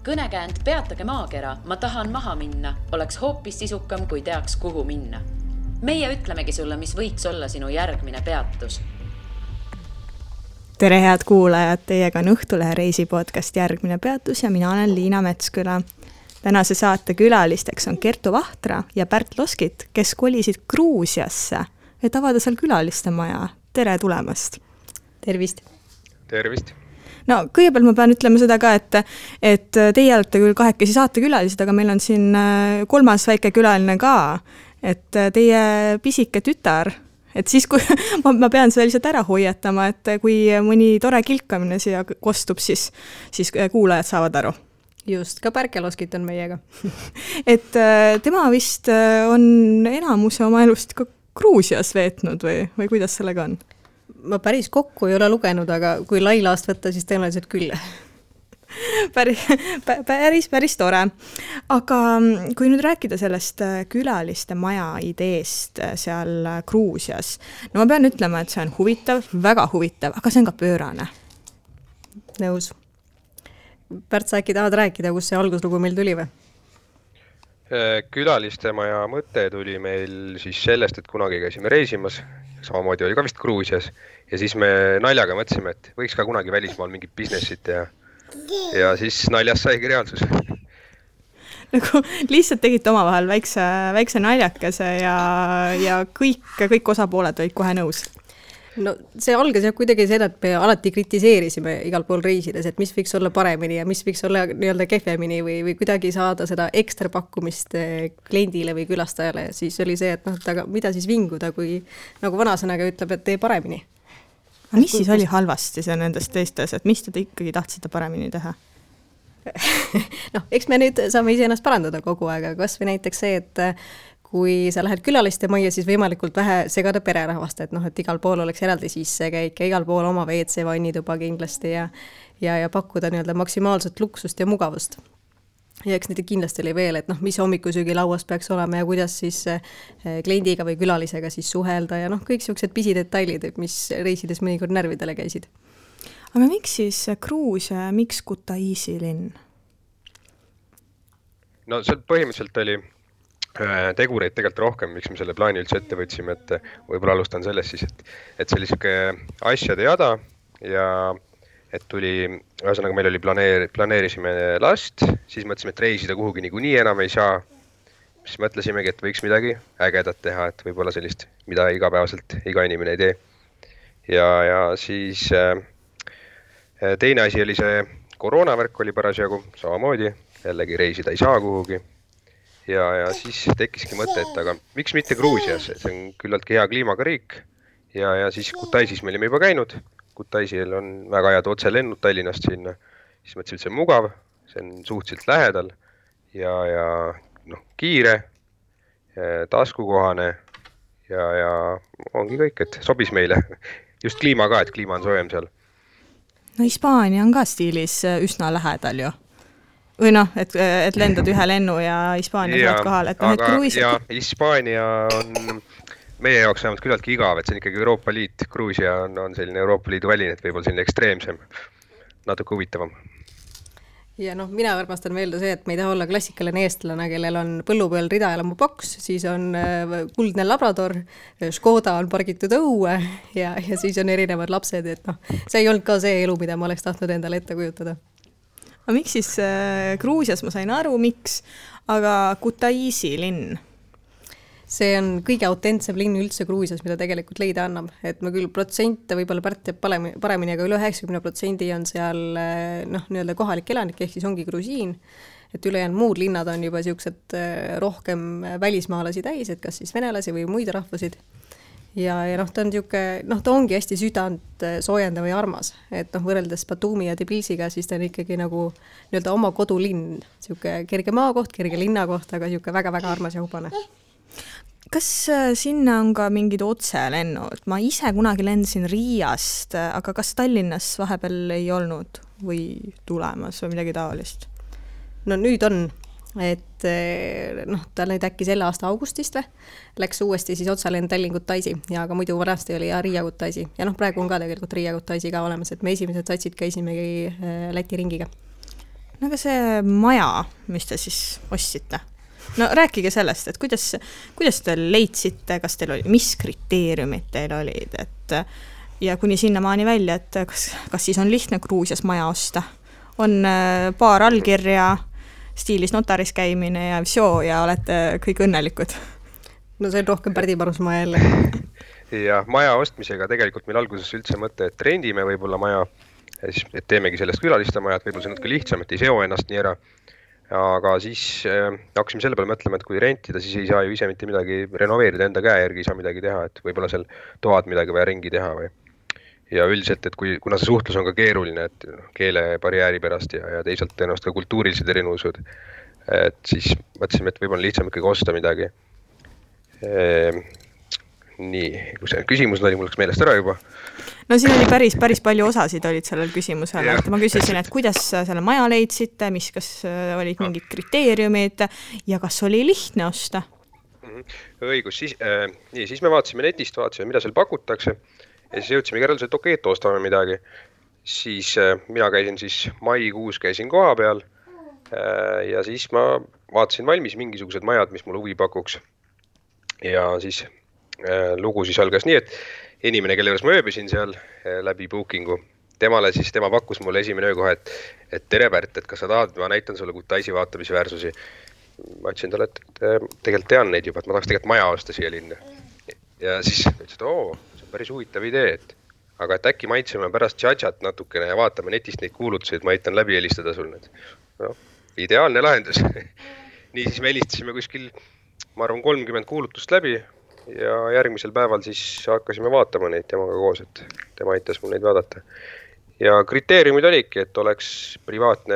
Kõnekäänd Peatage maakera, ma tahan maha minna, oleks hoopis sisukam, kui teaks, kuhu minna. Meie ütlemegi sulle, mis võiks olla sinu järgmine peatus. Tere head kuulajad, teiega on Õhtulehe reisi podcast Järgmine peatus ja mina olen Liina Metsküla. Tänase saate külalisteks on Kertu Vahtra ja Pärt Loskit, kes kolisid Gruusiasse, et avada seal külaliste maja. Tere tulemast! Tervist! Tervist! No, kõigepealt ma pean ütlema seda ka, et teie olete küll kahekesi saate külalised, aga meil on siin kolmas väike külaline ka, et teie pisike tütar, et siis kui ma pean seda lihtsalt ära hoiatama, et kui mõni tore kilkamine siia kostub, siis kuulajad saavad aru. Just, ka Pärke Loskit on meiega. Et tema vist on enamuse oma elust ka Gruusias veetnud või kuidas sellega on? Ma päris kokku ei ole lugenud, aga kui lailaast võtta, siis tõenäoliselt küll. Päris tore. Aga kui nüüd rääkida sellest külaliste maja ideest seal Gruusias, no ma pean ütlema, et see on huvitav, väga huvitav, aga see on ka pöörane. Nõus. Pärt, sa äkki tahad rääkida, kus see alguslugu meil tuli või? Külaliste maja mõte tuli meil siis sellest, et kunagi käisime reisimas, samamoodi oli ka vist Gruusias, ja siis me naljaga mõtlesime, et võiks ka kunagi välismaal mingit businessit ja siis naljast saigi reaalsus. Nagu lihtsalt tegite omavahel väikse naljakese ja kõik osapooled olid kohe nõus. No see algas jah kuidagi seda, et me alati kritiseerisime igal pool reisides, et mis võiks olla paremini ja mis võiks olla nii-öelda kehvemini või kuidagi saada seda ekstra pakkumist kliendile või külastajale. Siis oli see, et aga mida siis vinguda, kui nagu vanasõnaga ütleb, et tee paremini. Aga mis siis oli halvasti see nendest teistes, et mis te ikkagi tahtsite paremini teha? Eks me nüüd saame ise ennast parandada kogu aeg, aga kas või näiteks see, et kui sa lähed külaliste majja, siis võimalikult vähe segada pererahvast, et igal pool oleks eraldi sissekäik ja igal pool oma WC vannituba kindlasti ja pakkuda nii-öelda maksimaalset luksust ja mugavust. Ja eks nüüd kindlasti oli veel, et mis hommikusöögi lauas peaks olema ja kuidas siis kliendiga või külalisega siis suhelda ja kõik sellised pisidetailid, mis reisides mõnikord närvidele käisid. Aga miks siis Gruusia, miks Kutaisi linn? No see põhimõtteliselt oli tegureid tegelikult rohkem, miks me selle plaani üldse ette võtsime, et võib-olla alustan sellest siis, et sellisike asjade jada ja et tuli, ühesõnaga meil oli planeerisime last, siis mõtlesime, et reisida kuhugi niikuinii enam ei saa, siis mõtlesimegi, et võiks midagi ägedat teha, et võib-olla sellist, mida igapäevaselt iga inimene ei tee. Ja siis teine asi oli see koroonavärk oli parasjagu samamoodi, jällegi reisida ei saa kuhugi. Ja siis tekkiski mõte, et aga miks mitte Gruusias, see on küllaltki hea kliimaga riik ja siis Kutaisis me olime juba käinud, Kutaisil on väga head otselennud Tallinnast sinna, siis mõtlesin, et see on mugav, see on suhteliselt lähedal ja kiire, taskukohane ja ongi kõik, et sobis meile just kliima ka, et kliima on soojem seal. No Hispaania on ka stiilis üsna lähedal ju. Või et lendad ühe lennu ja Hispaania saad kohal. Ja Hispaania on meie jaoks vähemalt küllaltki igav, et see on ikkagi Euroopa Liit. Gruusia on selline Euroopa Liidu väline, et võib-olla selline ekstreemsem, natuke huvitavam. Ja mina armastan meelde see, et me ei taha olla klassikaline eestlane, kellel on põllu peal ridaelamu boks, siis on kuldne Labrador, Škoda on pargitud õue ja siis on erinevad lapsed, et see ei olnud ka see elu, mida ma oleks tahtnud endale ette kujutada. Aga miks siis Gruusias, ma sain aru, miks, aga Kutaisi linn? See on kõige autentsem linn üldse Gruusias, mida tegelikult leida annab. Et ma küll protsente võib-olla Pärt teeb paremini, aga üle 90% on seal nii-öelda kohalik elanik, ehk siis ongi grusiin. Et ülejäänud muud linnad on juba siuksed rohkem välismaalasi täis, et kas siis venelasi või muid rahvusid. Ja ta on ta ongi hästi südant soojendav ja armas, et võrreldes Batumi ja Tbilisiga, siis ta on ikkagi nagu nii-öelda oma kodulinn, siuke kerge maakoht, kerge linnakoht, aga siuke väga-väga armas ja hubane. Kas sinna on ka mingid otselennud? Ma ise kunagi lendasin Riiast, aga kas Tallinnas vahepeal ei olnud või tulemas või midagi taolist? No nüüd on, et ta nüüd äkki selle aasta augustist läks uuesti siis otsalend Tallinn-Kutaisi ja aga muidu varasti oli Riia-Kutaisi ja praegu on ka tegelikult Riia-Kutaisi ka olemas, et me esimesed satsid käisimegi Läti ringiga. No aga see maja, mis te siis ostsite? No rääkige sellest, et kuidas te leidsite, kas teil oli, mis kriteeriumid teil olid, et ja kuni sinnamaani välja, et kas siis on lihtne Gruusias maja osta? On paar allkirja, stiilis notaris käimine ja visio ja olete kõik õnnelikud? No see on rohkem Pärdi Parusmaa jälle. Ja maja ostmisega tegelikult meil alguses üldse mõte, et rendime võib-olla maja, et teemegi sellest külaliste majad, võib-olla see on natuke lihtsam, et ei seo ennast nii ära. Aga siis hakkasime selle peale mõtlema, et kui rentida, siis ei saa ju ise mitte midagi renoveerida enda käe järgi, ei saa midagi teha, et võib-olla seal toad midagi vaja ringi teha või. Ja üldiselt, et kuna see suhtlus on ka keeruline, et keelebarjääri pärast ja teisalt tõenäoliselt ka kultuurilised erinevused, et siis mõtlesime, et võib-olla lihtsam ikkagi osta midagi. Nii, kui see küsimus oli, mul läks meelest ära juba. No siin oli päris palju osasid olid sellel küsimusel, et ma küsisin, et kuidas selle maja leidsite, kas olid mingid kriteeriumid ja kas oli lihtne osta? Õigus, siis me vaatasime netist, mida seal pakutakse ja siis jõudsime järeldusele, et okei, et ostame midagi. Siis mina käisin maikuus koha peal ja siis ma vaatasin valmis mingisugused majad, mis mul huvi pakuks. Ja siis lugu siis algas nii, et inimene, kelle juures ma ööbisin seal läbi bookingu, tema pakkus mulle esimene öö kohe, et tere Pärt, et kas sa tahad, ma näitan sulle Kutaisi vaatamisväärsusi. Ma ütlesin talle, et tegelikult tean neid juba, et ma tahaks tegelikult maja osta siia linna. Ja siis ütles, et see on päris huvitav idee, aga et äkki maitseme pärast tšatšat natukene ja vaatame netist neid kuulutusi, et ma aitan läbi helistada sul need. No, ideaalne lahendus. Nii siis me helistasime kuskil, ma arvan, 30 kuulutust läbi ja järgmisel päeval siis hakkasime vaatama neid temaga koos, et tema aitas mul neid vaadata. Ja kriteeriumid olidki, et oleks privaatne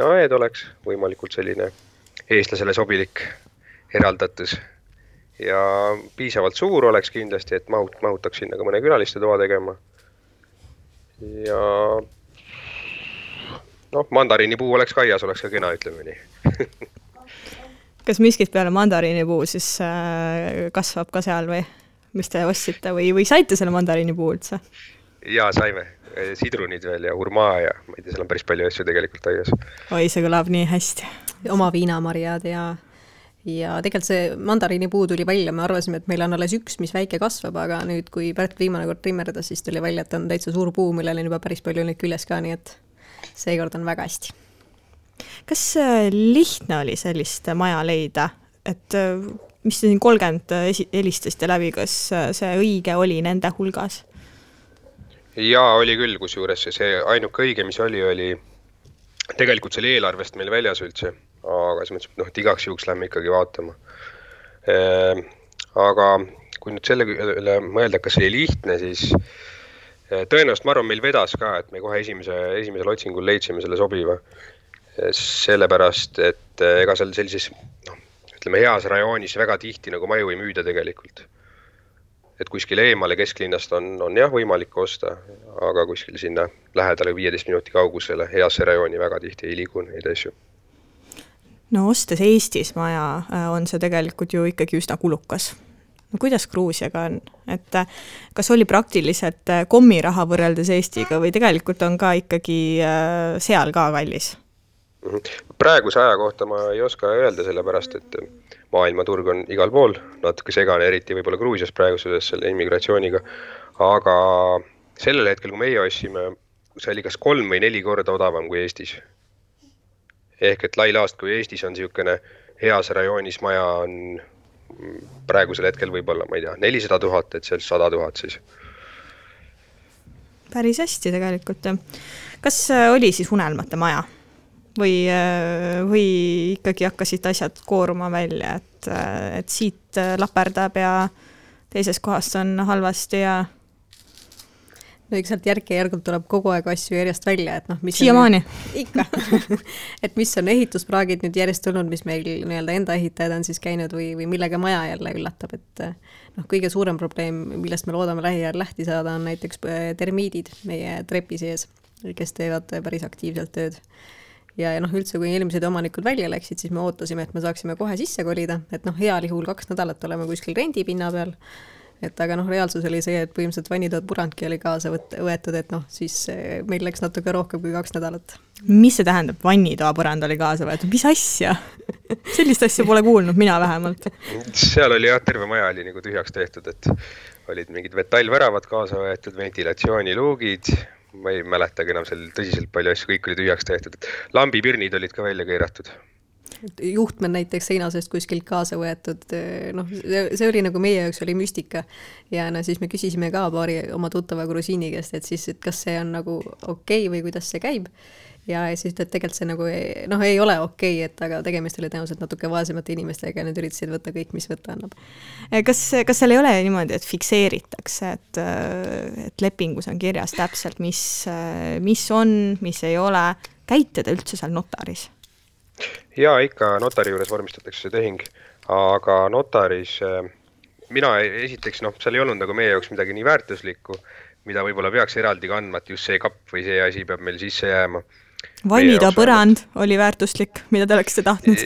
aed oleks, võimalikult selline eestlasele sobilik eraldatus ja piisavalt suur oleks kindlasti, et mahutaks sinna ka mõne külaliste toa tegema. Ja mandariinipuu oleks kaias, oleks ka kena, ütleme nii. Kas miskit peale mandariinipuu siis kasvab ka seal või mis te ostsite või saite selle mandariinipuu üldse? Jaa, saime. Sidrunid veel ja hurmaa ja ma ei tea, seal on päris palju asju tegelikult aias. Oi, see kõlab nii hästi. Oma viinamarjad ja tegelikult see mandariinipuu tuli välja, me arvasime, et meil on alles üks, mis väike kasvab, aga nüüd, kui Pärt viimane kord trimmerdas, siis tuli välja, et on täitsa suur puu, millel on juba päris palju neid küljes ka, nii et seekord on väga hästi. Kas lihtne oli sellist maja leida, et mis te siin 30 helistasite läbi, kas see õige oli nende hulgas? Jaa, oli küll, kus juures see ainuke õige, mis oli tegelikult selle eelarvest meil väljas üldse, aga siis mõtlesin, et igaks juhuks lähme ikkagi vaatama. Aga kui nüüd selle üle mõelda, kas oli lihtne, siis tõenäoliselt ma arvan, meil vedas ka, et me kohe esimesel otsingul leidsime selle sobiva. Sellepärast, et ega seal sellises heas rajoonis väga tihti nagu maju ei müüda tegelikult. Et kuskil eemale kesklinnast on jah võimalik osta, aga kuskil sinna lähedale 15 minuti kaugusele heasse rajooni väga tihti ei liigu neid asju. No ostes Eestis maja on see tegelikult ju ikkagi üsna kulukas. No kuidas Gruusiaga on? Et kas oli praktiliselt kommiraha võrreldes Eestiga või tegelikult on ka ikkagi seal ka kallis? Praeguse aja kohta ma ei oska öelda sellepärast, et maailmaturg on igal pool, natuke segane, eriti võib-olla Gruusias praeguses selle immigratsiooniga, aga sellel hetkel, kui meie ostsime, see oli kas 3 või 4 korda odavam kui Eestis. Ehk et lailaast, kui Eestis on niisugune heas rajoonis maja on praegusel hetkel võib-olla, ma ei tea, 400 000, et seal 100 000 siis. Päris hästi tegelikult. Kas oli siis unelmate maja? Või ikkagi hakkasid asjad kooruma välja, et siit laperdab ja teises kohast on halvasti ja... No eks sealt järk-järgult tuleb kogu aeg asju järjest välja, et mis siiamaani. Ikka. Et mis on ehituspraagid nüüd järjest tulnud, mis meil enda ehitajad on siis käinud või millega maja jälle üllatab, et kõige suurem probleem, millest me loodame lähiajal lähti saada, on näiteks termiidid meie trepi sees, kes teevad päris aktiivselt tööd. Ja üldse, kui eelmised omanikud välja läksid, siis me ootasime, et me saaksime kohe sisse kolida, et heal juhul 2 nädalat oleme kuskil rendipinna peal, aga reaalsus oli see, et põhimõtteliselt vannitood purandki oli kaasa võetud, et siis meil läks natuke rohkem kui 2 nädalat. Mis see tähendab, vannitoa põrand oli kaasa võetud? Mis asja? Sellist asja pole kuulnud, mina vähemalt. Seal oli jah, terve maja oli nagu tühjaks tehtud, et olid mingid metallväravad kaasa võetud, ventilatsiooniluugid, ma ei mäletagi enam seal tõsiselt palju asju, kõik oli tühjaks tehtud. Lambipirnid olid ka välja keeratud. Juhtmed näiteks seinasest kuskilt kaasa võetud, noh, see oli nagu meie jaoks oli müstika ja no siis me küsisime ka paari oma tuttava grusiini käest, et siis, et kas see on nagu okei või kuidas see käib ja siis et tegelikult see nagu noh, ei ole okei, et aga tegemist oli tõenäoliselt natuke vaesemate inimestega ja need üritasid võtta kõik, mis võtta annab. Kas seal ei ole niimoodi, et fikseeritakse, et lepingus on kirjas täpselt, mis on, mis ei ole, käite te üldse seal notaris? Ja ikka notari juures vormistatakse see tehing, aga notaris mina esiteks, noh, seal ei olnud nagu meie jaoks midagi nii väärtuslikku, mida võib-olla peaks eraldi kandma, et just see kapp või see asi peab meil sisse jääma. Vannitoa põrand oli väärtuslik, mida te oleksite tahtnud?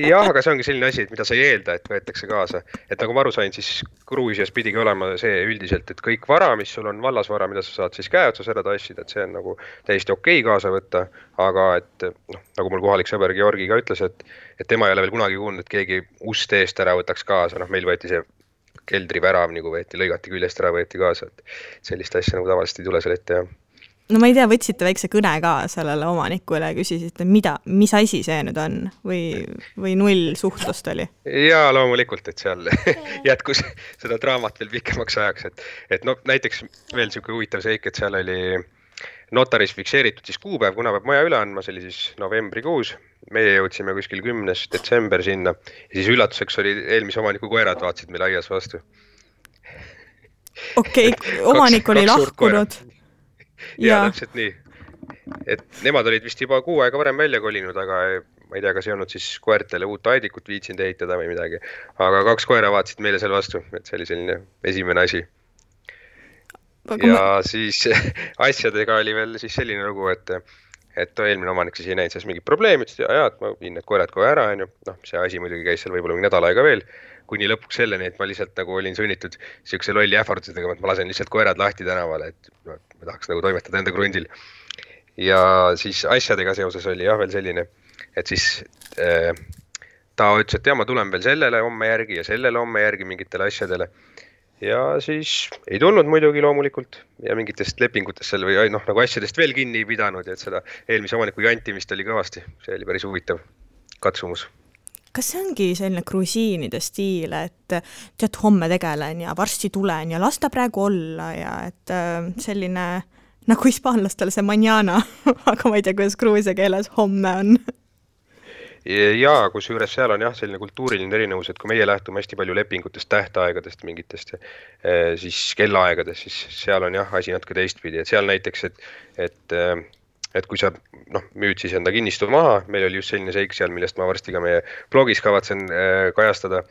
Jah, aga see ongi selline asi, et mida sa ei eelda, et võetakse kaasa. Et nagu ma aru sain, siis Gruusias pidigi olema see üldiselt, et kõik vara, mis sul on vallasvara, mida sa saad siis käe otsas ära tassida, et see on nagu täiesti okei kaasa võtta, aga et noh, nagu mul kohalik sõber Georgi ka ütles, et tema ei ole veel kunagi kuulnud, et keegi ust eest ära võtaks kaasa, noh meil võeti see keldrivärav nagu võeti, lõigati küljest ära võeti kaasa, et sellist asja nagu tavaliselt ei tule seal ette, jah. No ma ei tea, võtsite väikse kõne ka sellele omanikule ja küsisite, mis asi see nüüd on või null suhtlust oli? Jaa, loomulikult, et seal jätkus seda draamat veel pikemaks ajaks, et no näiteks veel selline huvitav seik, et seal oli notaris fikseeritud siis kuupäev, kuna peab maja üle andma, see oli siis novembrikuus, meie jõudsime kuskil 10. detsember sinna ja siis üllatuseks oli eelmise omaniku koerad vaatsid meil aias vastu. Okei, omanik oli lahkunud. Ja täpselt nii, et nemad olid vist juba 6 aega varem välja kolinud, aga ma ei tea, kas ei olnud siis koertele uut aedikut viitsinud ehitada või midagi, aga 2 koera vaatsid meile seal vastu, et see oli selline esimene asi. Ja siis asjadega oli veel siis selline lugu, et eelmine omanik siis ei näinud selles mingit probleemi, ütles, et ma viin need koerad kohe ära, noh, see asi muidugi käis seal võib-olla mingi nädal aega veel, kuni lõpuks selleni, et ma lihtsalt nagu olin sunnitud siukse lolli ähvardusega, et ma lasen lihtsalt koerad lahti tänavale, et ma tahaks nagu toimetada enda krundil. Ja siis asjadega seoses oli jah veel selline, et siis ta ütles, et ma tulen veel sellele homme järgi ja sellele homme järgi mingitele asjadele. Ja siis ei tulnud muidugi loomulikult ja mingitest lepingutest seal või noh, nagu asjadest veel kinni ei pidanud ja et seda eelmise omaniku jantimist oli kõvasti. See oli päris huvitav katsumus. Kas see ongi selline grusiinide stiil, et tead, homme tegelen ja varsti tulen ja lasta praegu olla ja et selline nagu hispaanlastele see mañana, aga ma ei tea, kuidas gruusia keeles homme on. Jaa, kus juures seal on jah selline kultuuriline erinevus, et kui meie lähtume hästi palju lepingutest, tähtaegadest mingitest, siis kellaaegadest, siis seal on jah asi natuke teistpidi, et seal näiteks, et kui sa müüd siis enda kinnistu maha, meil oli just selline seik seal, millest ma varsti ka meie blogis kavatsen kajastada,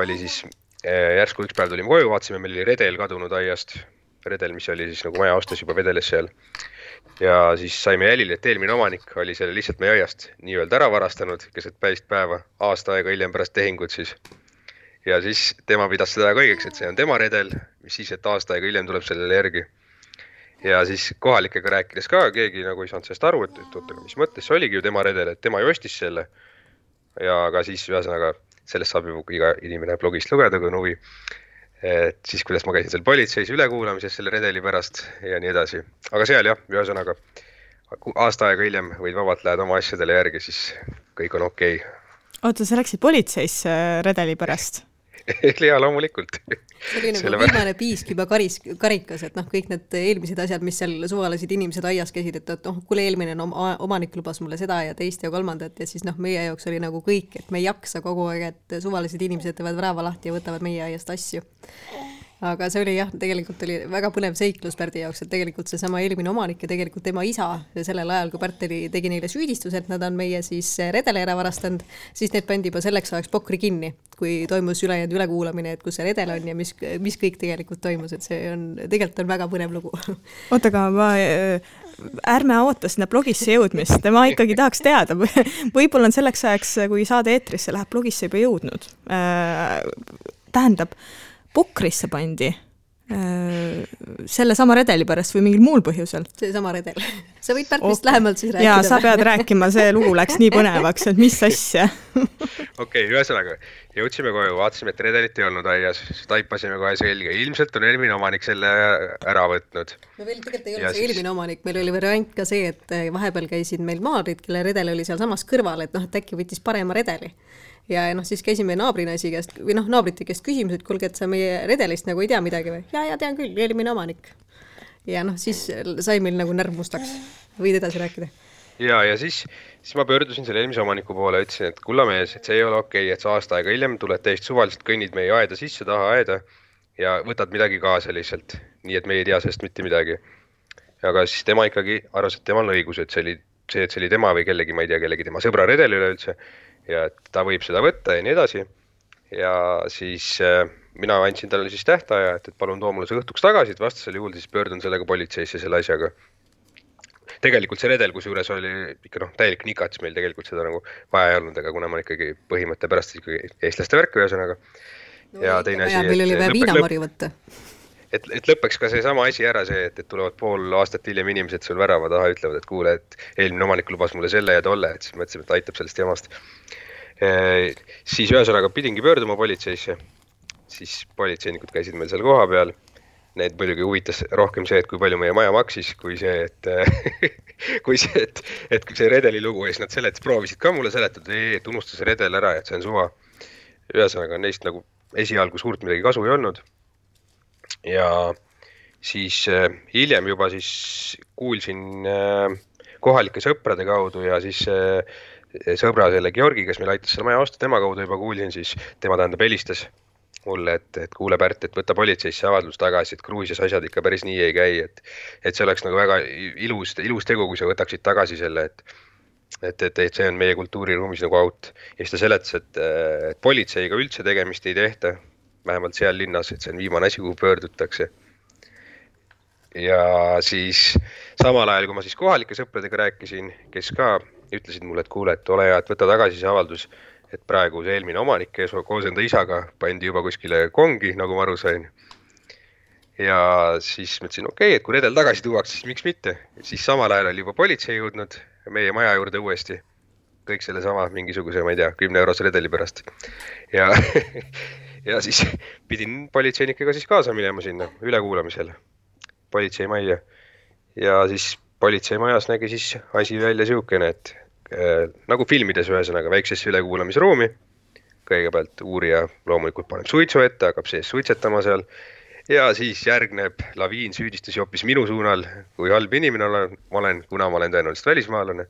oli siis järsku üks päev tulime koju, vaatasime, meil oli redel kadunud aiast, redel, mis oli siis nagu maja ostes juba vedeles seal. Ja siis saime jälile, et eelmine omanik oli selle lihtsalt meie aiast nii-öelda ära varastanud, keset päevist päeva, aasta aega hiljem pärast tehingut siis. Ja siis tema pidas seda kõigeks, et see on tema redel, mis siis, et aasta aega hiljem tuleb sellele järgi. Ja siis kohalikega rääkides ka, keegi nagu ei saanud sellest aru, et ootega, mis mõttes, see oligi ju tema redel, et tema ju ostis selle. Ja ka siis ühesõnaga sellest saab juba iga inimene blogist lugeda, kui on huvi. Et siis, kuidas ma käisin seal politseis ülekuulamises selle redeli pärast ja nii edasi. Aga seal jah, ühesõnaga aasta aega hiljem võid vabalt lähed oma asjadele järgi, siis kõik on okei. Oota, sa läksid politseis redeli pärast? Ja loomulikult. See oli nagu viimane piisk juba karikas, et kõik need eelmised asjad, mis seal suvalised inimesed aias käisid, et kuule eelmine omanik lubas mulle seda ja teist ja kolmandat ja siis meie jaoks oli nagu kõik, et me ei jaksa kogu aeg, et suvalised inimesed teevad värava lahti ja võtavad meie aiast asju. Aga see oli jah, tegelikult oli väga põnev seiklus Pärdi jaoks, et tegelikult see sama eelmine omanik ja tegelikult tema isa sellel ajal, kui Pärt tegi neile süüdistus, et nad on meie siis redele ära varastanud, siis need pandi juba selleks ajaks pokri kinni, kui toimus ülejäänud ülekuulamine, et kus see redel on ja mis kõik tegelikult toimus, et see on, tegelikult on väga põnev lugu. Oota, aga ärme oota sinna blogisse jõudmist, ma ikkagi tahaks teada, võib-olla on selleks ajaks, kui saade eetrisse läheb blogisse juba jõudnud. Tähendab, pokrisse pandi selle sama redeli pärast või mingil muul põhjusel? See sama redel. Sa võid Pärtist lähemalt siis rääkida. Jaa, sa pead rääkima, see lugu läks nii põnevaks, et mis asja. Okei, ühesõnaga, jõudsime koju, vaatasime, et redelit ei olnud aias, taipasime kohe selge. Ilmselt on eelmine omanik selle ära võtnud. No veel tegelikult ei olnud see eelmine omanik, meil oli variant ka see, et vahepeal käisid meil maadrid, kelle redel oli seal samas kõrval, et äkki võttis parema redeli. Ja siis käisime naabrinaisi käest, või naabrite käest küsimus, et kuulge, et sa meie redelist nagu ei tea midagi või? Ja tean küll, eelmine omanik. Ja siis sai meil nagu närv mustaks. Võid edasi rääkida? Ja siis ma pöördusin selle eelmise omaniku poole ja ütlesin, et kullamees, et see ei ole okei, et sa aasta aega hiljem tuled täiesti suvaliselt kõnnid meie aeda sisse, taha aeda ja võtad midagi kaasa lihtsalt. Nii, et me ei tea sellest mitte midagi. Aga siis tema ikkagi arvas, et temal on õigus, et see oli tema või kellegi, ma ei tea, kellegi tema sõbra redel üleüldse. Ja et ta võib seda võtta ja nii edasi. Ja siis mina andsin talle siis tähtaja, et palun too mulle see õhtuks tagasi, et vastasel juhul siis pöördun sellega politseisse selle asjaga. Tegelikult see redel, kus juures oli ikka täielik nikats, meil tegelikult seda nagu vaja ei olnud, aga kuna ma ikkagi põhimõtte pärast ikkagi eestlaste värk ühesõnaga. Ja teine asi, meil oli vaja viinamarju võtta. Et lõpeks ka see sama asi ära see, et tulevad pool aastat hiljem inimesed sul värava taha ütlevad, et kuule, et eelmine omanik lubas mulle selle ja tolle, et siis mõtlesime, et aitab sellest jamast. Siis ühesõnaga pidingi pöörduma politseisse, siis politseinikud käisid meil seal koha peal. Need muidugi huvitas rohkem see, et kui palju meie maja maksis, kui see, et see redeli lugu ja siis nad proovisid ka mulle seletada, et unusta see redel ära, et see on suva. Ühesõnaga neist nagu esialgu suurt midagi kasu ei olnud. Ja siis hiljem juba siis kuulsin kohalike sõprade kaudu ja siis sõbra selle Georgi, kes meil aitas selle maja osta, tema kaudu juba kuulsin, siis tema tähendab helistas mulle, et kuule Pärt, et võtta politseisse avaldus tagasi, et Gruusias asjad ikka päris nii ei käi, et see oleks nagu väga ilus tegu, kui sa võtaksid tagasi selle, et see on meie kultuuriruumis nagu out. Ja siis ta seletas, et politseiga üldse tegemist ei tehta, vähemalt seal linnas, et see on viimane asi, kuhu pöördutakse. Ja siis samal ajal, kui ma siis kohalike sõpradega rääkisin, kes ka ütlesid mulle, et kuule, et ole hea, et võta tagasi see avaldus, et praegu see eelmine omanik koos enda isaga pandi juba kuskile kongi, nagu ma aru sain. Ja siis mõtlesin, okei, et kui redel tagasi tuuaks, siis miks mitte. Siis samal ajal oli juba politsei jõudnud meie maja juurde uuesti. Kõik selle sama mingisuguse, ma ei tea, 10 eurose redeli pärast. Ja siis pidin politseinikega siis kaasa minema sinna ülekuulamisel politseimajja. Ja siis politseimajas nägi siis asi välja siukene, et nagu filmides ühesõnaga väiksesse ülekuulamisruumi. Kõigepealt uurija loomulikult paneb suitsu ette, hakkab sees suitsetama seal. Ja siis järgneb laviin süüdistusi hoopis minu suunal, kui halb inimene olen, kuna ma olen tõenäoliselt välismaalane.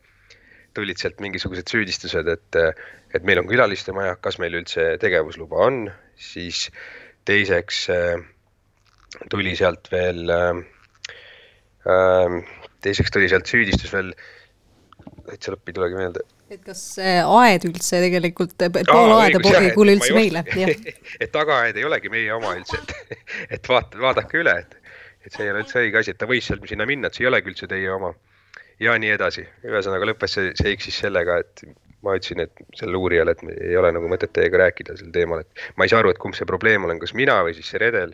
Tulid sealt mingisugused süüdistused, et meil on külaliste maja, kas meil üldse tegevusluba on. Siis teiseks tuli sealt veel süüdistus veel, et see lõppi tulegi meelde. Et kas aed üldse tegelikult, pool aeda ei kuule üldse meile? Et tagaaed ei olegi meie oma üldse, et vaadake üle, et see ei ole üldse õige asi, et ta võis seal sinna minna, et see ei olegi üldse teie oma. Ja nii edasi. Ühesõnaga lõppes see iksis sellega, et ma ütlesin, et selle uurijale, et ei ole nagu mõtet teiega rääkida sel teemal, et ma ei saa aru, et kumb see probleem olen, kas mina või siis see redel.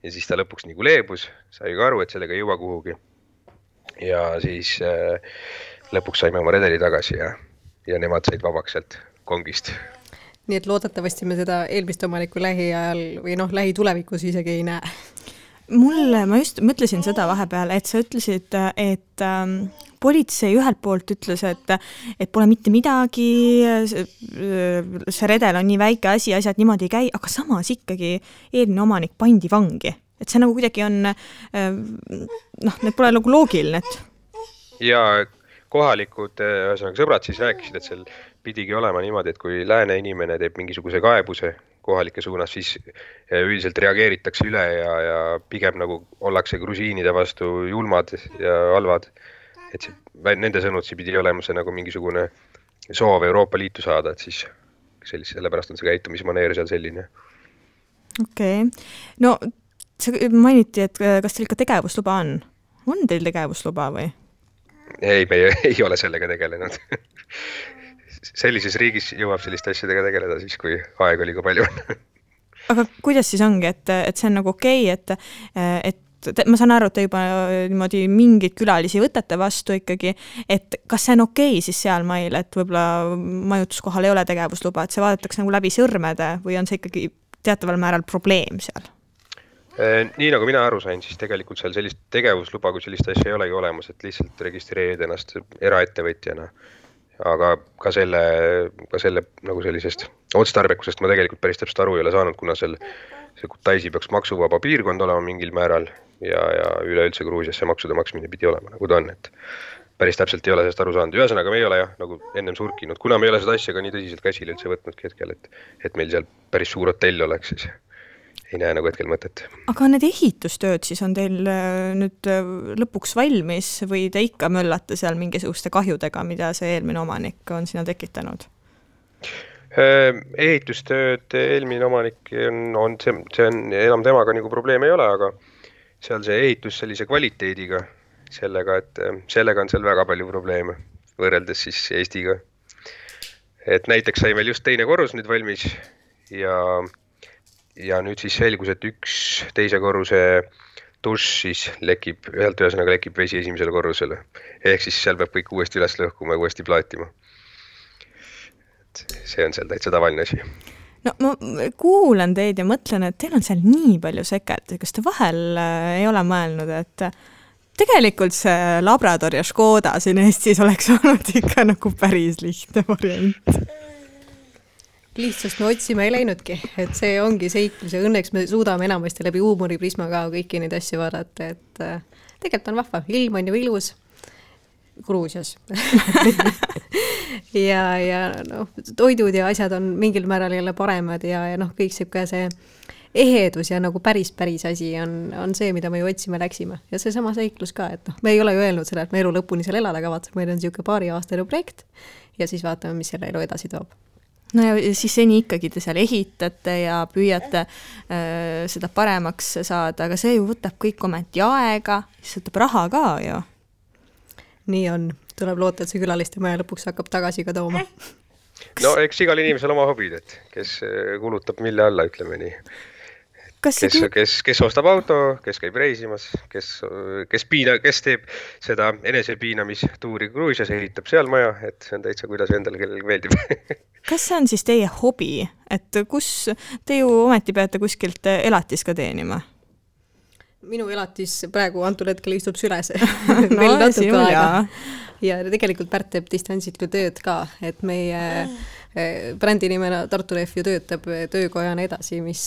Ja siis ta lõpuks nagu leebus, sai ka aru, et sellega ei jõua kuhugi. Ja siis lõpuks saime oma redeli tagasi ja nemad said vabaks sealt kongist. Nii et loodetavasti me seda eelmist omanikku lähiajal või lähitulevikus isegi ei näe. Ma just mõtlesin seda vahepeal, et sa ütlesid, et politsei ühelt poolt ütles, et pole mitte midagi, see redel on nii väike asi, asjad niimoodi ei käi, aga samas ikkagi eelmine omanik pandi vangi. Et see nagu kuidagi on, need pole nagu loogiline. Ja kohalikud sõbrad siis rääkisid, et seal pidigi olema niimoodi, et kui lääne inimene teeb mingisuguse kaebuse kohalike suunas, siis üldiselt reageeritakse üle ja pigem nagu ollakse grusiinide vastu julmad ja halvad. Et nende sõnutsi pidi olema see nagu mingisugune soov Euroopa Liitu saada, et siis sellepärast on see käitumismaneer seal selline. Okei. No see mainiti, et kas teil ikka tegevusluba on? On teil tegevusluba või? Ei, me ei ole sellega tegelenud. Sellises riigis jõuab selliste asjadega tegeleda siis, kui aeg oli ka palju. aga kuidas siis ongi, et see on nagu okei, et ma saan aru, et te juba niimoodi mingeid külalisi võtate vastu ikkagi, et kas see on okei siis sealmail, et võib-olla majutuskohal ei ole tegevusluba, et see vaadatakse nagu läbi sõrmede või on see ikkagi teataval määral probleem seal? Nii nagu mina aru sain, siis tegelikult seal sellist tegevusluba, kui sellist asja ei olegi olemas, et lihtsalt registreerida ennast eraettevõtjana. Aga ka selle nagu sellisest otstarbekusest ma tegelikult päris täpselt aru ei ole saanud, kuna see Kutaisi peaks maksuvaba piirkond olema mingil määral ja üleüldse Gruusias see maksude maksmine pidi olema, nagu ta on, et päris täpselt ei ole sellest aru saanud. Ühesõnaga me ei ole nagu ennem surkinud, kuna me ei ole seda asja ka nii tõsiselt käsile üldse võtnudki hetkel, et meil seal päris suur hotell oleks, siis ei näe nagu hetkel mõtet. Aga need ehitustööd siis on teil nüüd lõpuks valmis või te ikka möllate seal mingisuguste kahjudega, mida see eelmine omanik on sinna tekitanud? Ehitustööd eelmine omanik on see on enam temaga nagu probleem ei ole, aga seal see ehitus sellise kvaliteediga, sellega on seal väga palju probleeme võrreldes siis Eestiga. Et näiteks sai meil just teine korrus nüüd valmis ja nüüd siis selgus, et üks teise korruse dušš siis ühesõnaga lekib vesi esimesele korrusele. Ehk siis seal peab kõik uuesti üles lõhkuma ja uuesti plaatima. Et see on seal täitsa tavaline asi. No ma kuulen teid ja mõtlen, et teil on seal nii palju seket. Kas te vahel ei ole mõelnud, et tegelikult see Labrador ja Škoda siin Eestis oleks olnud ikka nagu päris lihtne variant? Lihtsalt me otsime ei läinudki, et see ongi seiklus ja õnneks me suudame enamasti läbi huumoriprisma ka kõiki neid asju vaadata, et tegelikult on vahva, ilm on ju ilus Gruusias ja toidud ja asjad on mingil määral jälle paremad ja kõik see ehedus ja nagu päris asi on see, mida me ju otsime läksime ja see sama seiklus ka, et me ei ole ju öelnud seda, et me elu lõpuni seal elada kavatseb, meil on siuke paari aastane projekt ja siis vaatame, mis selle elu edasi toob. No ja siis seni ikkagi te seal ehitate ja püüate seda paremaks saada, aga see ju võtab kõik ometi aega, siis võtab raha ka ju. Nii on, tuleb loota, et see külaliste maja lõpuks hakkab tagasi ka tooma. No eks igal inimesel oma hobid, et kes kulutab mille alla, ütleme nii. Kes ostab auto, kes käib reisimas, kes teeb seda enesepiinamistuuri Gruusias, ehitab seal maja, et see on täitsa kuidas endale kellelgi meeldib. Kas see on siis teie hobi, et kus te ju ometi peate kuskilt elatis ka teenima? Minu elatis praegu antud hetkel istub süles. No, ja tegelikult Pärt teeb distantsilt tööd ka, et meie brändi nimena Tartu Rehv ju töötab töökojana edasi, mis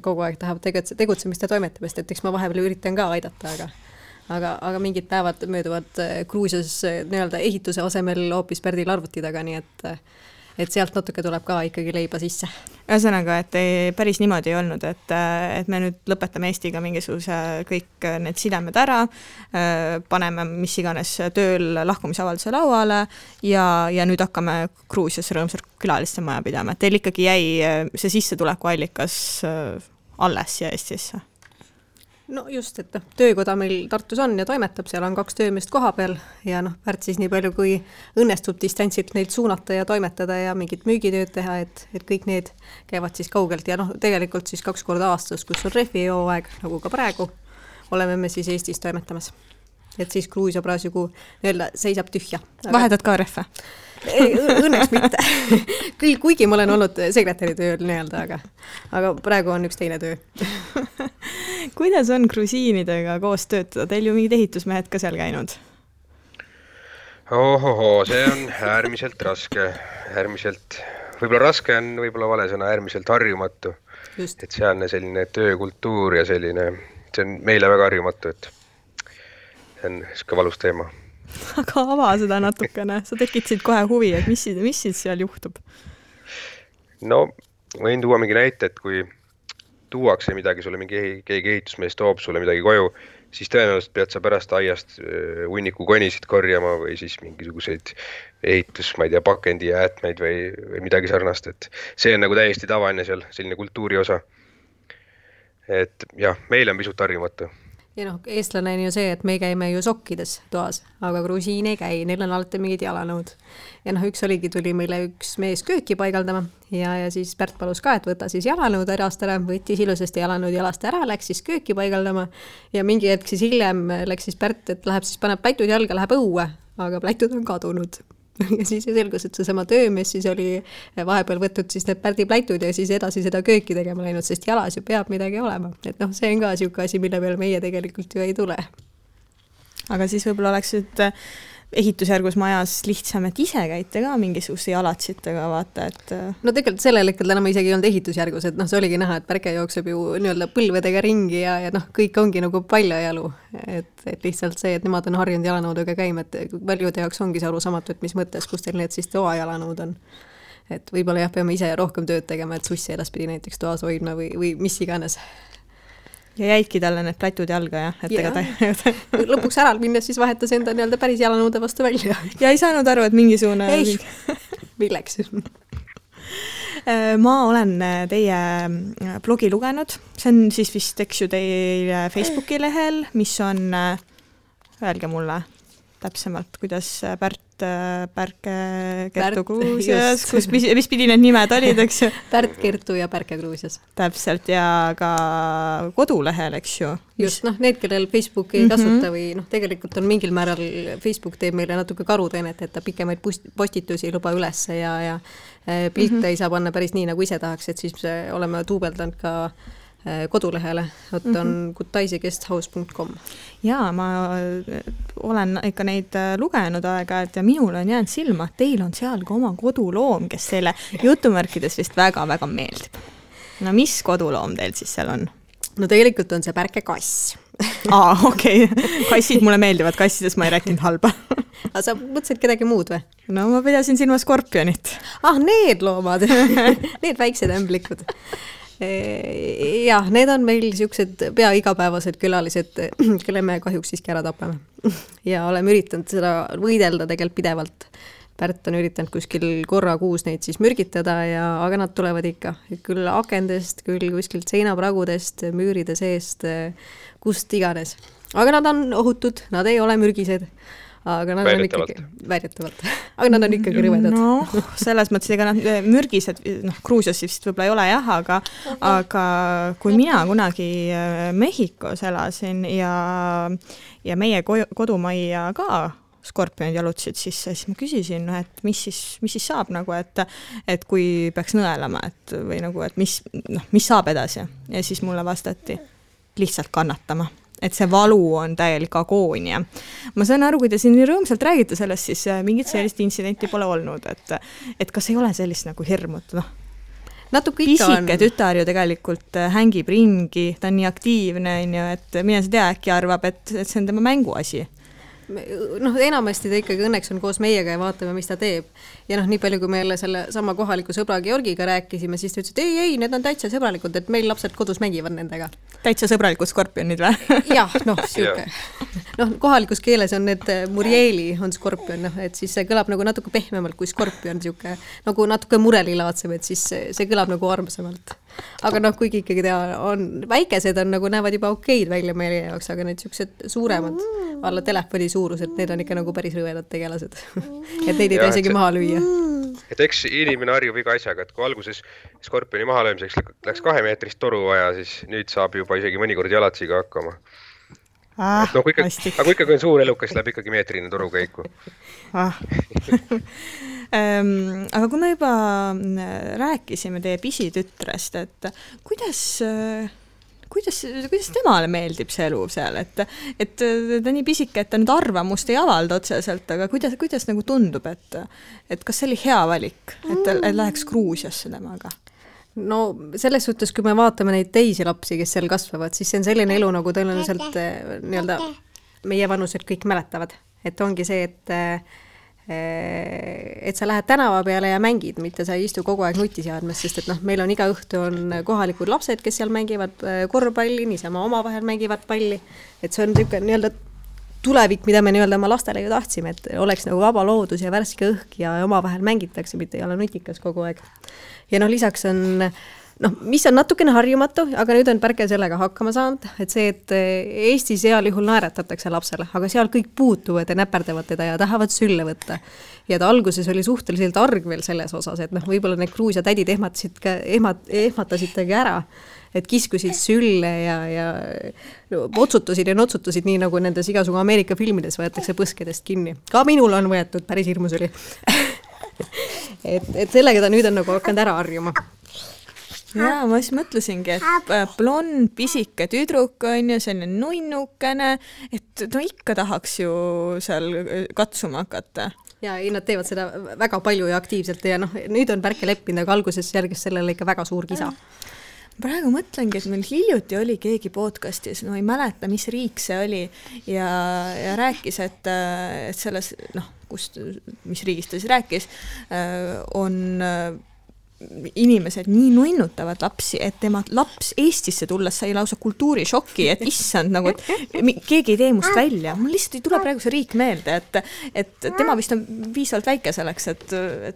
kogu aeg tahab tegutsemist ja toimetamist, et eks ma vahepeal üritan ka aidata, aga mingid päevad mööduvad Gruusias nii-öelda ehituse asemel hoopis Pärdil arvuti taga, nii et sealt natuke tuleb ka ikkagi leiba sisse. Ühesõnaga, et päris niimoodi ei olnud, et me nüüd lõpetame Eestiga mingisuguse kõik need sidemed ära, paneme mis iganes tööl lahkumisavalduse lauale ja nüüd hakkame Gruusias rõõmsalt külaliste maja pidama. Teil ikkagi jäi see sissetuleku allikas alles ja Eestisse? No just, et töökoda meil Tartus on ja toimetab, seal on 2 töömeest koha peal ja Pärt siis nii palju, kui õnnestub distantsilt neid suunata ja toimetada ja mingit müügitööd teha, et kõik need käivad siis kaugelt ja tegelikult siis 2 korda aastas, kus on rehvi jooaeg, nagu ka praegu, oleme me siis Eestis toimetamas. Et siis Gruusia praegu nii-öelda seisab tühja. Vahetad ka rehve? Õnneks mitte. Küll, kuigi ma olen olnud sekretäri tööl nii-öelda, aga praegu on üks teine töö. Kuidas on grusiinidega koos töötada? Teil ju mingid ehitusmehed ka seal käinud? See on äärmiselt raske. Võib-olla raske on võib-olla vale sõna, äärmiselt harjumatu. Just. Et sealne selline töökultuur ja selline, see on meile väga harjumatu, et see on siuke valus teema. Aga ava seda natukene, sa tekitasid kohe huvi, et mis siis seal juhtub? No, võin tuua mingi näite, et kui tuuakse midagi, sulle keegi ehitusmees toob sulle midagi koju, siis tõenäoliselt pead sa pärast aiast hunniku konisid korjama või siis mingisuguseid ehitus, ma ei tea, pakendi jäätmeid või midagi sarnast, et see on nagu täiesti tavaline seal, selline kultuuri osa. Et jah, meil on pisut harjumatu. Ja noh, eestlane on ju see, et me käime ju sokkides toas, aga grusiin ei käi, neil on alati mingid jalanõud. Ja noh, tuli meile üks mees kööki paigaldama ja siis Pärt palus ka, et võta siis jalanõud ärast ära, võttis ilusasti jalanõud jalast ära, läks siis kööki paigaldama ja mingi hetk siis hiljem läks siis Pärt, et läheb siis paneb pläitud jalga, läheb õue, aga pläitud on kadunud. Ja siis selgus, et seesama töömees siis oli vahepeal võtnud siis need Pärdi pläitud ja siis edasi seda kööki tegema läinud, sest jalas ju peab midagi olema. Et noh, see on ka siuke asi, mille peale meie tegelikult ju ei tule. Aga siis võib-olla oleks nüüd ehitusjärgus majas lihtsam, et ise käite ka mingisuguse jalatsitega, vaata, et... No tegelikult sellel hetkel enam isegi ei olnud ehitusjärgus, et noh, see oligi näha, et Pärke jookseb ju nii-öelda põlvedega ringi ja noh, kõik ongi nagu paljajalu. Et lihtsalt see, et nemad on harjunud jalanõudega käima, et paljude jaoks ongi see arusaamatu, et mis mõttes, kus teil need siis toa jalanõud on. Et võib-olla jah, peame ise rohkem tööd tegema, et sussi edaspidi näiteks toas hoidma või mis iganes. Ja jäidki talle need plätud jalga, jah? Et lõpuks ära minnes siis vahetas enda nii-öelda päris jalanõude vastu välja. Ja ei saanud aru, et mingisugune... Ei, milleks? Ma olen teie blogi lugenud. See on siis vist, eks ju, teie Facebooki lehel, mis on, öelge mulle täpsemalt, kuidas Pärke Kertu Gruusias, mis pidi need nimed olid, eks ju? Pärt Kertu ja Pärke Gruusias. Täpselt, ja ka kodulehel, eks ju? Just, noh, need, kellel Facebook ei kasuta või noh, tegelikult on mingil määral Facebook teeb meile natuke karuteenet, et ta pikemaid postitusi ei luba ülesse ja pilte ei saa panna päris nii, nagu ise tahaks, et siis oleme tuubeldanud ka kodulehele, on gutaisigesthouse.com. Jaa, ma olen ikka neid lugenud aega-ajalt ja minul on jäänud silma, et teil on seal ka oma koduloom, kes teile jutumärkides vist väga-väga meeldib. No mis koduloom teil siis seal on? No tegelikult on see Pärke kass. Okei. Kassid mulle meeldivad, kassidest ma ei rääkinud halba. Aga sa mõtlesid kedagi muud või? No ma pidasin silma skorpionit. Need loomad, need väiksed ämblikud. Jah, need on meil siuksed pea igapäevased külalised, kelle me kahjuks siiski ära tapame. Ja oleme üritanud seda võidelda tegelikult pidevalt. Pärt on üritanud kuskil korra kuus neid siis mürgitada, aga nad tulevad ikka. Küll akendest, küll kuskilt seinapragudest, müüride seest, kust iganes. Aga nad on ohutud, nad ei ole mürgised. Aga nad on ikkagi väidetavalt. Aga nad on ikkagi rõvedad. No, selles mõttes, ega nad mürgised, Gruusias vist võib-olla ei ole jah, aga kui mina kunagi Mehhikos elasin ja meie kodumajja ka skorpionid jalutasid sisse, siis ma küsisin, et mis siis saab, nagu, et kui peaks nõelama, või nagu, et mis saab edasi. Ja siis mulle vastati lihtsalt kannatama. Et see valu on täielik agoonia. Ma saan aru, kui te siin nii rõõmsalt räägite sellest, siis mingit sellist intsidenti pole olnud, et kas ei ole sellist nagu hirmut, Natuke ikka on. Pisike tütar ju tegelikult hängib ringi, ta on nii aktiivne, et mine sa tea, äkki arvab, et see on tema mänguasi. Enamasti ta ikkagi õnneks on koos meiega ja vaatame, mis ta teeb. Ja nii palju, kui meile selle sama kohaliku sõbra Georgiga rääkisime, siis ta ütles, et ei, need on täitsa sõbralikud, et meil lapsed kodus mängivad nendega. Täitsa sõbralikud skorpionid või? Jah, siuke. Kohalikus keeles on need murjeeli on skorpion, et siis see kõlab nagu natuke pehmemalt kui skorpion, siuke, nagu natuke murelilaatsem, et siis see kõlab nagu armsamalt. Aga kuigi ikkagi väikesed on nagu näevad juba okeid välja meie jaoks, aga need siuksed suuremad alla telefoni suurused, need on ikka nagu päris rõvedad tegelased. Et neid ei isegi maha lüüa. Et eks inimene harjub iga asjaga, et kui alguses skorpioni maha löömiseks läks 2 meetrist toru vaja, siis nüüd saab juba isegi mõnikord jalatsiga hakkama. Aga kui ikkagi on suur elukas, läheb ikkagi meetrine toru käiku. Aga kui me juba rääkisime teie pisitütrest, et kuidas temale meeldib see elu seal, et ta nii pisike, et ta nüüd arvamust ei avalda otseselt, aga kuidas nagu tundub, et kas see oli hea valik, et läheks Gruusiasse temaga? No selles suhtes, kui me vaatame neid teisi lapsi, kes seal kasvavad, siis see on selline elu, nagu tõenäoliselt nii-öelda meie vanused kõik mäletavad. Et ongi see, et sa lähed tänava peale ja mängid, mitte sa ei istu kogu aeg nutiseadmes, sest et meil on iga õhtu on kohalikud lapsed, kes seal mängivad korvpalli, niisama omavahel mängivad palli. Et see on niisugune nii-öelda tulevik, mida me nii-öelda oma lastele ju tahtsime, et oleks nagu vaba loodus ja värske õhk ja omavahel mängitakse, mitte ei ole nutikas kogu aeg. Ja lisaks on noh, mis on natukene harjumatu, aga nüüd on Pärke sellega hakkama saanud, et see, et Eestis heal juhul naeratatakse lapsele, aga seal kõik puutuvad ja näperdavad teda ja tahavad sülle võtta. Ja ta alguses oli suhteliselt arg veel selles osas, et noh, võib-olla need Gruusia tädid ehmatasid ära, et kiskusid sülle ja otsutasid ja notsutasid nii, nagu nendes igasugu Ameerika filmides võetakse põskedest kinni. Ka minul on võetud, päris hirmus oli. et sellega ta nüüd on nagu hakanud ära harjuma. Jaa, ma siis mõtlesingi, et blond, pisike tüdruk on ju, selline nunnukene, et no ikka tahaks ju seal katsuma hakata. Ja ei, nad teevad seda väga palju ja aktiivselt ja noh, nüüd on Pärke leppinud, aga alguses järgis sellele ikka väga suur kisa. Praegu mõtlengi, et meil hiljuti oli keegi podcastis, no ei mäleta, mis riik see oli ja rääkis, et selles, noh, mis riigist ta siis rääkis, on inimesed nii nunnutavad lapsi, et tema laps Eestisse tulles sai lausa kultuurišoki, et issand, nagu, et keegi ei tee must välja. Mul lihtsalt ei tule praegu see riik meelde, et tema vist on piisavalt väike selleks, et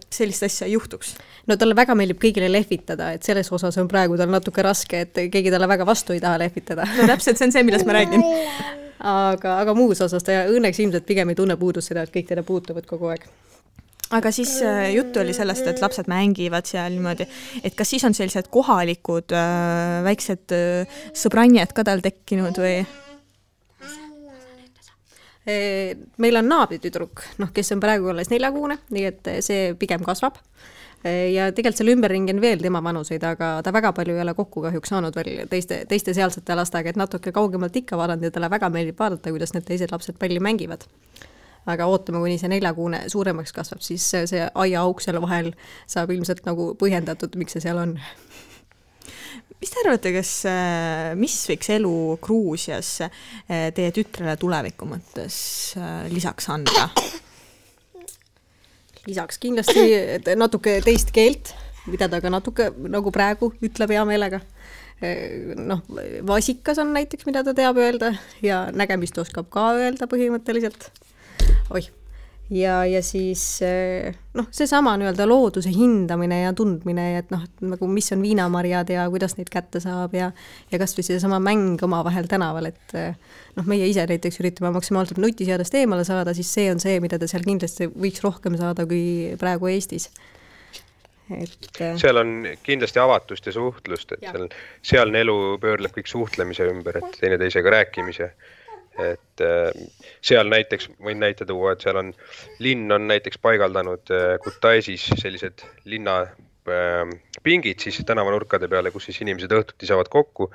sellist asja ei juhtuks. No talle väga meeldib kõigile lehvitada, et selles osas on praegu tal natuke raske, et keegi talle väga vastu ei taha lehvitada. No täpselt, see on see, millest ma räägin. Aga muus osas ta õnneks ilmselt pigem ei tunne puudust seda, et kõik teda puutuvad kogu aeg. Aga siis juttu oli sellest, et lapsed mängivad seal niimoodi, et kas siis on sellised kohalikud väiksed sõbranjad ka tal tekkinud või? Meil on naabritüdruk, kes on praegu alles 4-kuune, nii et see pigem kasvab. Ja tegelikult seal ümberringi on veel tema vanuseid, aga ta väga palju ei ole kokku kahjuks saanud veel teiste sealsete lastega, et natuke kaugemalt ikka vaadanud ja talle väga meeldib vaadata, kuidas need teised lapsed palju mängivad. Aga ootame, kuni see 4-kuune suuremaks kasvab, siis see aia auk seal vahel saab ilmselt nagu põhjendatud, miks see seal on. Mis te arvate, mis võiks elu Gruusias teie tütrele tuleviku mõttes lisaks anda? Lisaks kindlasti natuke teist keelt, mida ta ka natuke nagu praegu ütleb hea meelega. Noh, vasikas on näiteks, mida ta teab öelda ja nägemist oskab ka öelda põhimõtteliselt. Ja siis seesama nii-öelda looduse hindamine ja tundmine, et nagu mis on viinamarjad ja kuidas neid kätte saab ja kas või seesama mäng oma vahel tänaval, et meie ise näiteks üritame maksimaalselt nutiseadest eemale saada, siis see on see, mida ta seal kindlasti võiks rohkem saada kui praegu Eestis. Seal on kindlasti avatust ja suhtlust, et sealne elu pöörleb kõik suhtlemise ümber, et teineteisega rääkimise. Et seal näiteks võin näite tuua, et seal on linn on näiteks paigaldanud Kutaisis sellised linna pingid siis tänavanurkade peale, kus siis inimesed õhtuti saavad kokku,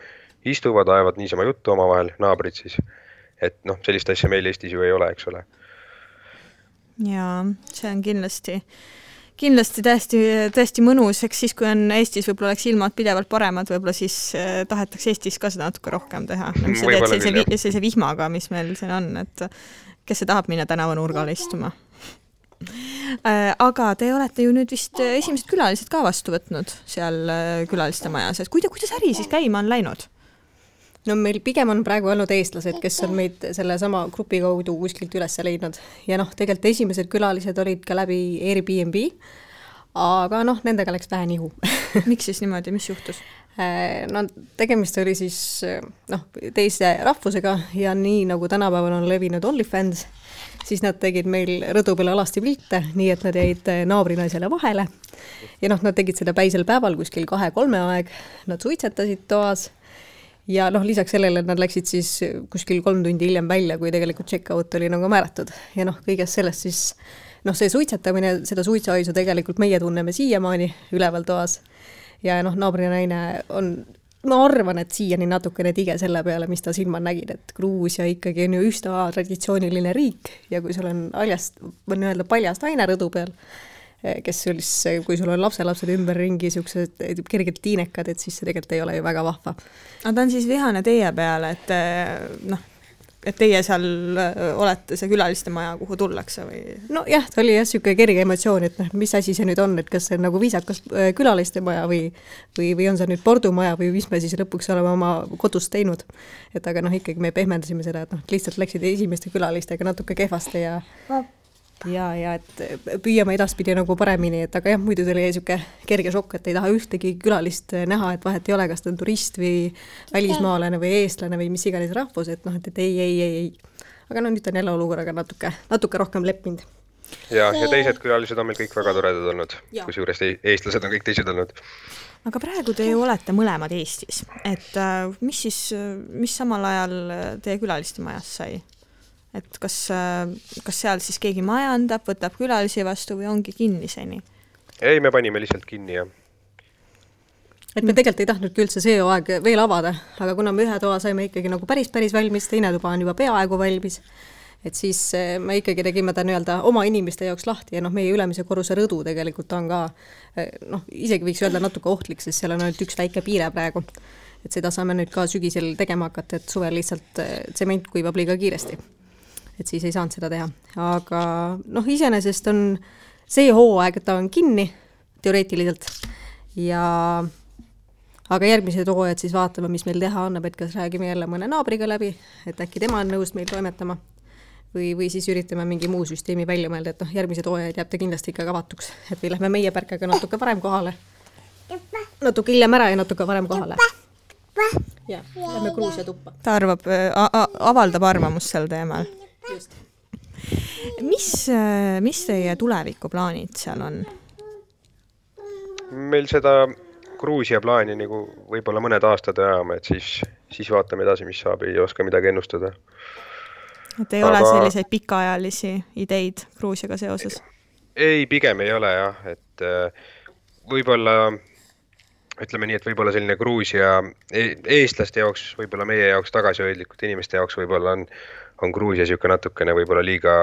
istuvad, ajavad niisama juttu omavahel, naabrid siis. Et sellist asja meil Eestis ju ei ole, eks ole. Jaa, see on kindlasti täiesti mõnus, eks siis, kui on Eestis võib-olla oleks ilmad pidevalt paremad, võib-olla siis tahetakse Eestis ka seda natuke rohkem teha. Mis sa teed sellise vihmaga, mis meil siin on, et kes see tahab minna tänavanurgale istuma. Aga te olete ju nüüd vist esimesed külalised ka vastu võtnud seal külaliste majas, et kuidas äri siis käima on läinud? No meil pigem on praegu olnud eestlased, kes on meid selle sama grupi kaudu kuskilt üles leidnud. Ja tegelikult esimesed külalised olid ka läbi Airbnb, aga nendega läks vähe nihu. Miks siis niimoodi, mis juhtus? Tegemist oli siis teise rahvusega ja nii nagu tänapäeval on levinud OnlyFans, siis nad tegid meil rõdu peale alasti pilte, nii et nad jäid naabrinaisele vahele. Ja nad tegid seda päisel päeval kuskil 2-3 aeg, nad suitsetasid toas. Ja lisaks sellele nad läksid siis kuskil 3 tundi hiljem välja, kui tegelikult check-out oli nagu määratud. Ja kõigest sellest siis, see suitsetamine, seda suitsuaisu tegelikult meie tunneme siiamaani üleval toas. Ja naabrinaine on, ma arvan, et siiani natukene tige selle peale, mis ta silma nägid, et Gruusia ikkagi on ju üsna traditsiooniline riik ja kui sul on paljast aine rõdu peal, kui sul on lapselapsed ümberringi siuksed kergelt tiinekad, et siis see tegelikult ei ole ju väga vahva. Aga ta on siis vihane teie peale, et teie seal olete see külaliste maja, kuhu tullakse või? No jah, ta oli siuke kerge emotsioon, et mis asi see nüüd on, et kas see on nagu viisakas külaliste maja või on see nüüd pordumaja või mis me siis lõpuks oleme oma kodus teinud. Et aga ikkagi me pehmendasime seda, et lihtsalt läksid esimeste külalistega natuke kehvaste ja ja et püüame edaspidi nagu paremini, et aga jah, muidu tuli siuke kerge šokk, et ei taha ühtegi külalist näha, et vahet ei ole, kas ta on turist või välismaalane või eestlane või mis iganes rahvus, et noh, et ei. Aga no nüüd on jälle olukorraga natuke rohkem leppinud. Ja teised külalised on meil kõik väga toredad olnud, kusjuures eestlased on kõik teised olnud. Aga praegu te ju olete mõlemad Eestis, et mis samal ajal teie külaliste majas sai? Et kas seal siis keegi majandab, võtab külalisi vastu või ongi kinniseni? Ei, me panime lihtsalt kinni, jah. Et me tegelikult ei tahtnudki üldse see aeg veel avada, aga kuna me ühe toa saime ikkagi nagu päris valmis, teine tuba on juba peaaegu valmis, et siis me ikkagi tegime ta nii-öelda oma inimeste jaoks lahti ja meie ülemise korruse rõdu tegelikult on ka, isegi võiks öelda natuke ohtlik, sest seal on ainult üks väike piire praegu. Et seda saame nüüd ka sügisel tegema hakata, et suvel lihtsalt tsement kuivab liiga kiiresti. Et siis ei saanud seda teha. Aga iseenesest on see hooaeg, et ta on kinni teoreetiliselt aga järgmised hooajad siis vaatame, mis meil teha annab, et kas räägime jälle mõne naabriga läbi, et äkki tema on nõus meil toimetama või siis üritame mingi muu süsteemi välja mõelda, et järgmised hooajad jääb ta kindlasti ikka avatuks, et või lähme meie pärkaga natuke varem kohale, natuke hiljem ära ja natuke varem kohale. Ja, lähme Gruusia tuppa. Ta avaldab arvamust sel teemal. Just. Mis teie tulevikuplaanid seal on? Meil seda Gruusia plaani nagu võib-olla mõned aastad ajama, et siis vaatame edasi, mis saab, ei oska midagi ennustada. Et ei ole selliseid pikaajalisi ideid Gruusiaga seoses? Ei, pigem ei ole jah, et võib-olla, ütleme nii, et võib-olla selline Gruusia eestlaste jaoks, võib-olla meie jaoks tagasihoidlikud inimeste jaoks võib-olla on Gruusia siuke natukene võib-olla liiga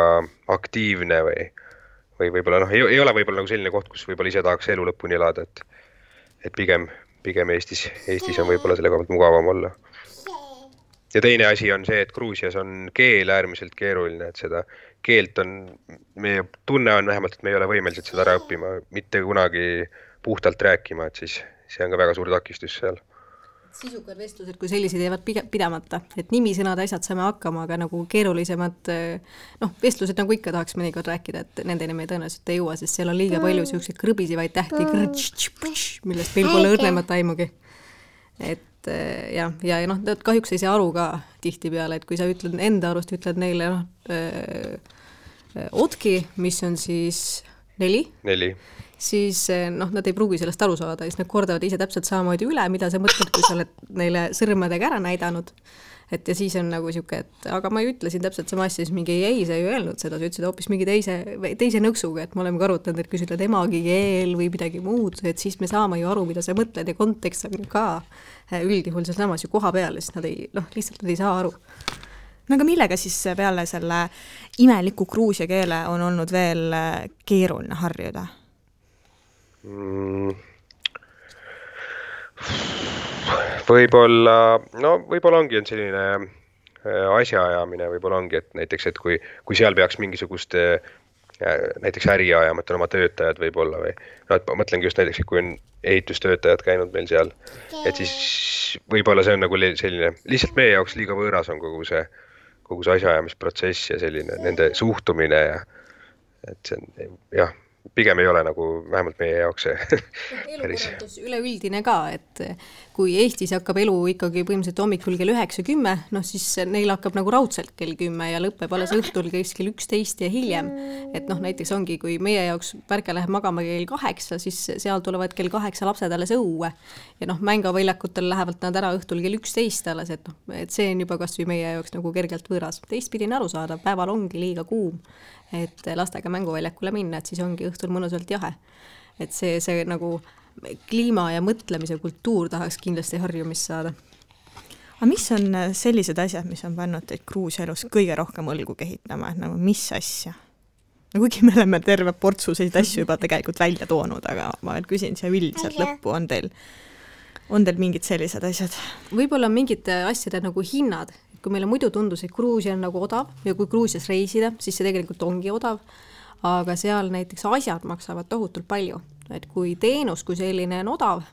aktiivne või võib-olla ei ole võib-olla nagu selline koht, kus võib-olla ise tahaks elu lõpuni elada, et pigem Eestis on võib-olla selle koha pealt mugavam olla. Ja teine asi on see, et Gruusias on keel äärmiselt keeruline, et seda keelt meie tunne on vähemalt, et me ei ole võimelised seda ära õppima, mitte kunagi puhtalt rääkima, et siis see on ka väga suur takistus seal. Sisukad vestlused, kui sellised jäävad pidamata, et nimisõnad asjad saame hakkama, aga nagu keerulisemad, vestlused nagu ikka tahaks mõnikord rääkida, et nendeni me tõenäoliselt ei jõua, sest seal on liiga palju selliseid krõbisivaid tähti, millest meil pole õrnemat aimugi. Et ja kahjuks ei saa aru ka tihti peale, et kui sa enda arust ütled neile otki, mis on siis 4, siis nad ei pruugi sellest aru saada, siis nad kordavad ise täpselt samamoodi üle, mida sa mõtled, kui sa oled neile sõrmedega ära näidanud. Et ja siis on nagu siuke, et aga ma ju ütlesin täpselt sama asja, siis mingi ei, sa ju öelnud seda, sa ütlesid hoopis mingi teise nõksuga, et me oleme ka arutanud, et kui sa ütled emagikeel või midagi muud, et siis me saame ju aru, mida sa mõtled ja kontekst on ka üldjuhul seal samas ju koha peal, sest nad lihtsalt ei saa aru. Aga millega siis peale selle imeliku gruusia keele on olnud veel keeruline harjuda? Võib-olla ongi selline asjaajamine, võib-olla ongi, et näiteks, et kui seal peaks mingisugust näiteks äri ajama, et on oma töötajad võib-olla või ma mõtlengi just näiteks, kui on ehitustöötajad käinud meil seal, et siis võib-olla see on nagu selline, lihtsalt meie jaoks liiga võõras on kogu see asjaajamisprotsess ja selline nende suhtumine ja et see on, jah, pigem ei ole nagu vähemalt meie jaoks see elukorraldus üleüldine ka, et kui Eestis hakkab elu ikkagi põhimõtteliselt hommikul kell 9-10, siis neil hakkab nagu raudselt kell 10 ja lõpeb alles õhtul kell 11 ja hiljem. Et näiteks ongi, kui meie jaoks Pärke läheb magama kell 8, siis seal tulevad kell 8 lapsed alles õue ja mängaväljakutel lähevad nad ära õhtul kell 11 alles, et see on juba kas või meie jaoks nagu kergelt võõras. Teistpidine aru saada, päeval ongi liiga kuum, et lastega mänguväljakule minna, et siis ongi õhtul mõnusalt jahe. Et see nagu kliima ja mõtlemise kultuur tahaks kindlasti harjumist saada. Aga mis on sellised asjad, mis on pannud teid Gruusia elus kõige rohkem õlgu kehitama, et nagu mis asja? Kuigi me oleme terve portsu selliseid asju juba tegelikult välja toonud, aga ma veel küsin siia üldiselt lõppu, on teil mingid sellised asjad? Võib-olla mingid asjade nagu hinnad, kui meile muidu tundus, et Gruusia on nagu odav ja kui Gruusias reisida, siis see tegelikult ongi odav, aga seal näiteks asjad maksavad tohutult palju. Et kui teenus, kui selline on odav,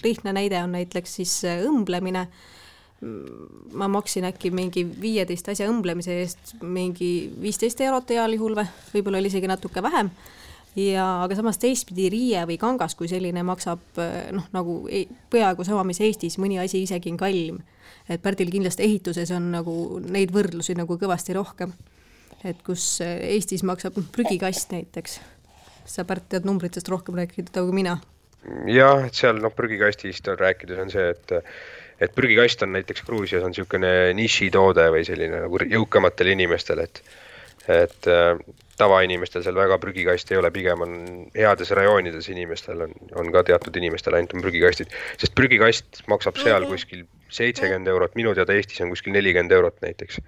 lihtne näide on näiteks siis õmblemine, ma maksin äkki mingi 15 asja õmblemise eest mingi 15 eurot heal juhul või, võib-olla oli isegi natuke vähem. Aga samas teistpidi riie või kangas, kui selline maksab nagu peaaegu sama, mis Eestis, mõni asi isegi on kallim. Et Pärdil kindlasti ehituses on nagu neid võrdlusi nagu kõvasti rohkem. Et kus Eestis maksab prügikast näiteks. Sa Pärt tead numbritest rohkem rääkida kui mina. Jah, et seal prügikastist rääkides on see, et prügikast on näiteks Gruusias on niisugune nišitoode või selline nagu jõukamatele inimestele, et tavainimestel seal väga prügikast ei ole, pigem on heades rajoonides inimestel on ka teatud inimestel ainult on prügikastid, sest prügikast maksab seal kuskil 70 eurot, minu teada Eestis on kuskil 40 eurot näiteks.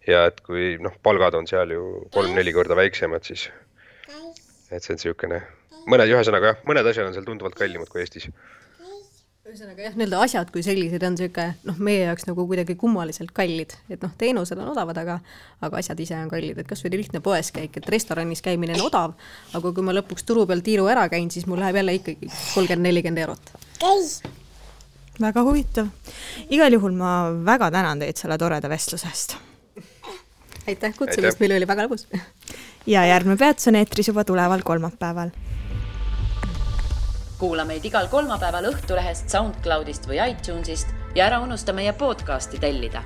Ja et kui palgad on seal ju 3-4 korda väiksemad, siis et see on niisugune ühesõnaga mõned asjad on seal tunduvalt kallimad kui Eestis. Ühesõnaga jah, need asjad kui sellised on siuke, meie jaoks nagu kuidagi kummaliselt kallid, et teenused on odavad, aga asjad ise on kallid, et kas või lihtne poes käik, et restoranis käimine on odav, aga kui ma lõpuks turu peal tiiru ära käin, siis mul läheb jälle ikkagi 30-40 eurot. Väga huvitav. Igal juhul ma väga tänan teid selle toreda vestlusest. Aitäh kutsumist, meil oli väga lõbus. Ja järgmine peatus on eetris juba tuleval kolmapäeval. Kuula meid igal kolmapäeval Õhtulehest, SoundCloudist või iTunesist ja ära unusta meie podcasti tellida.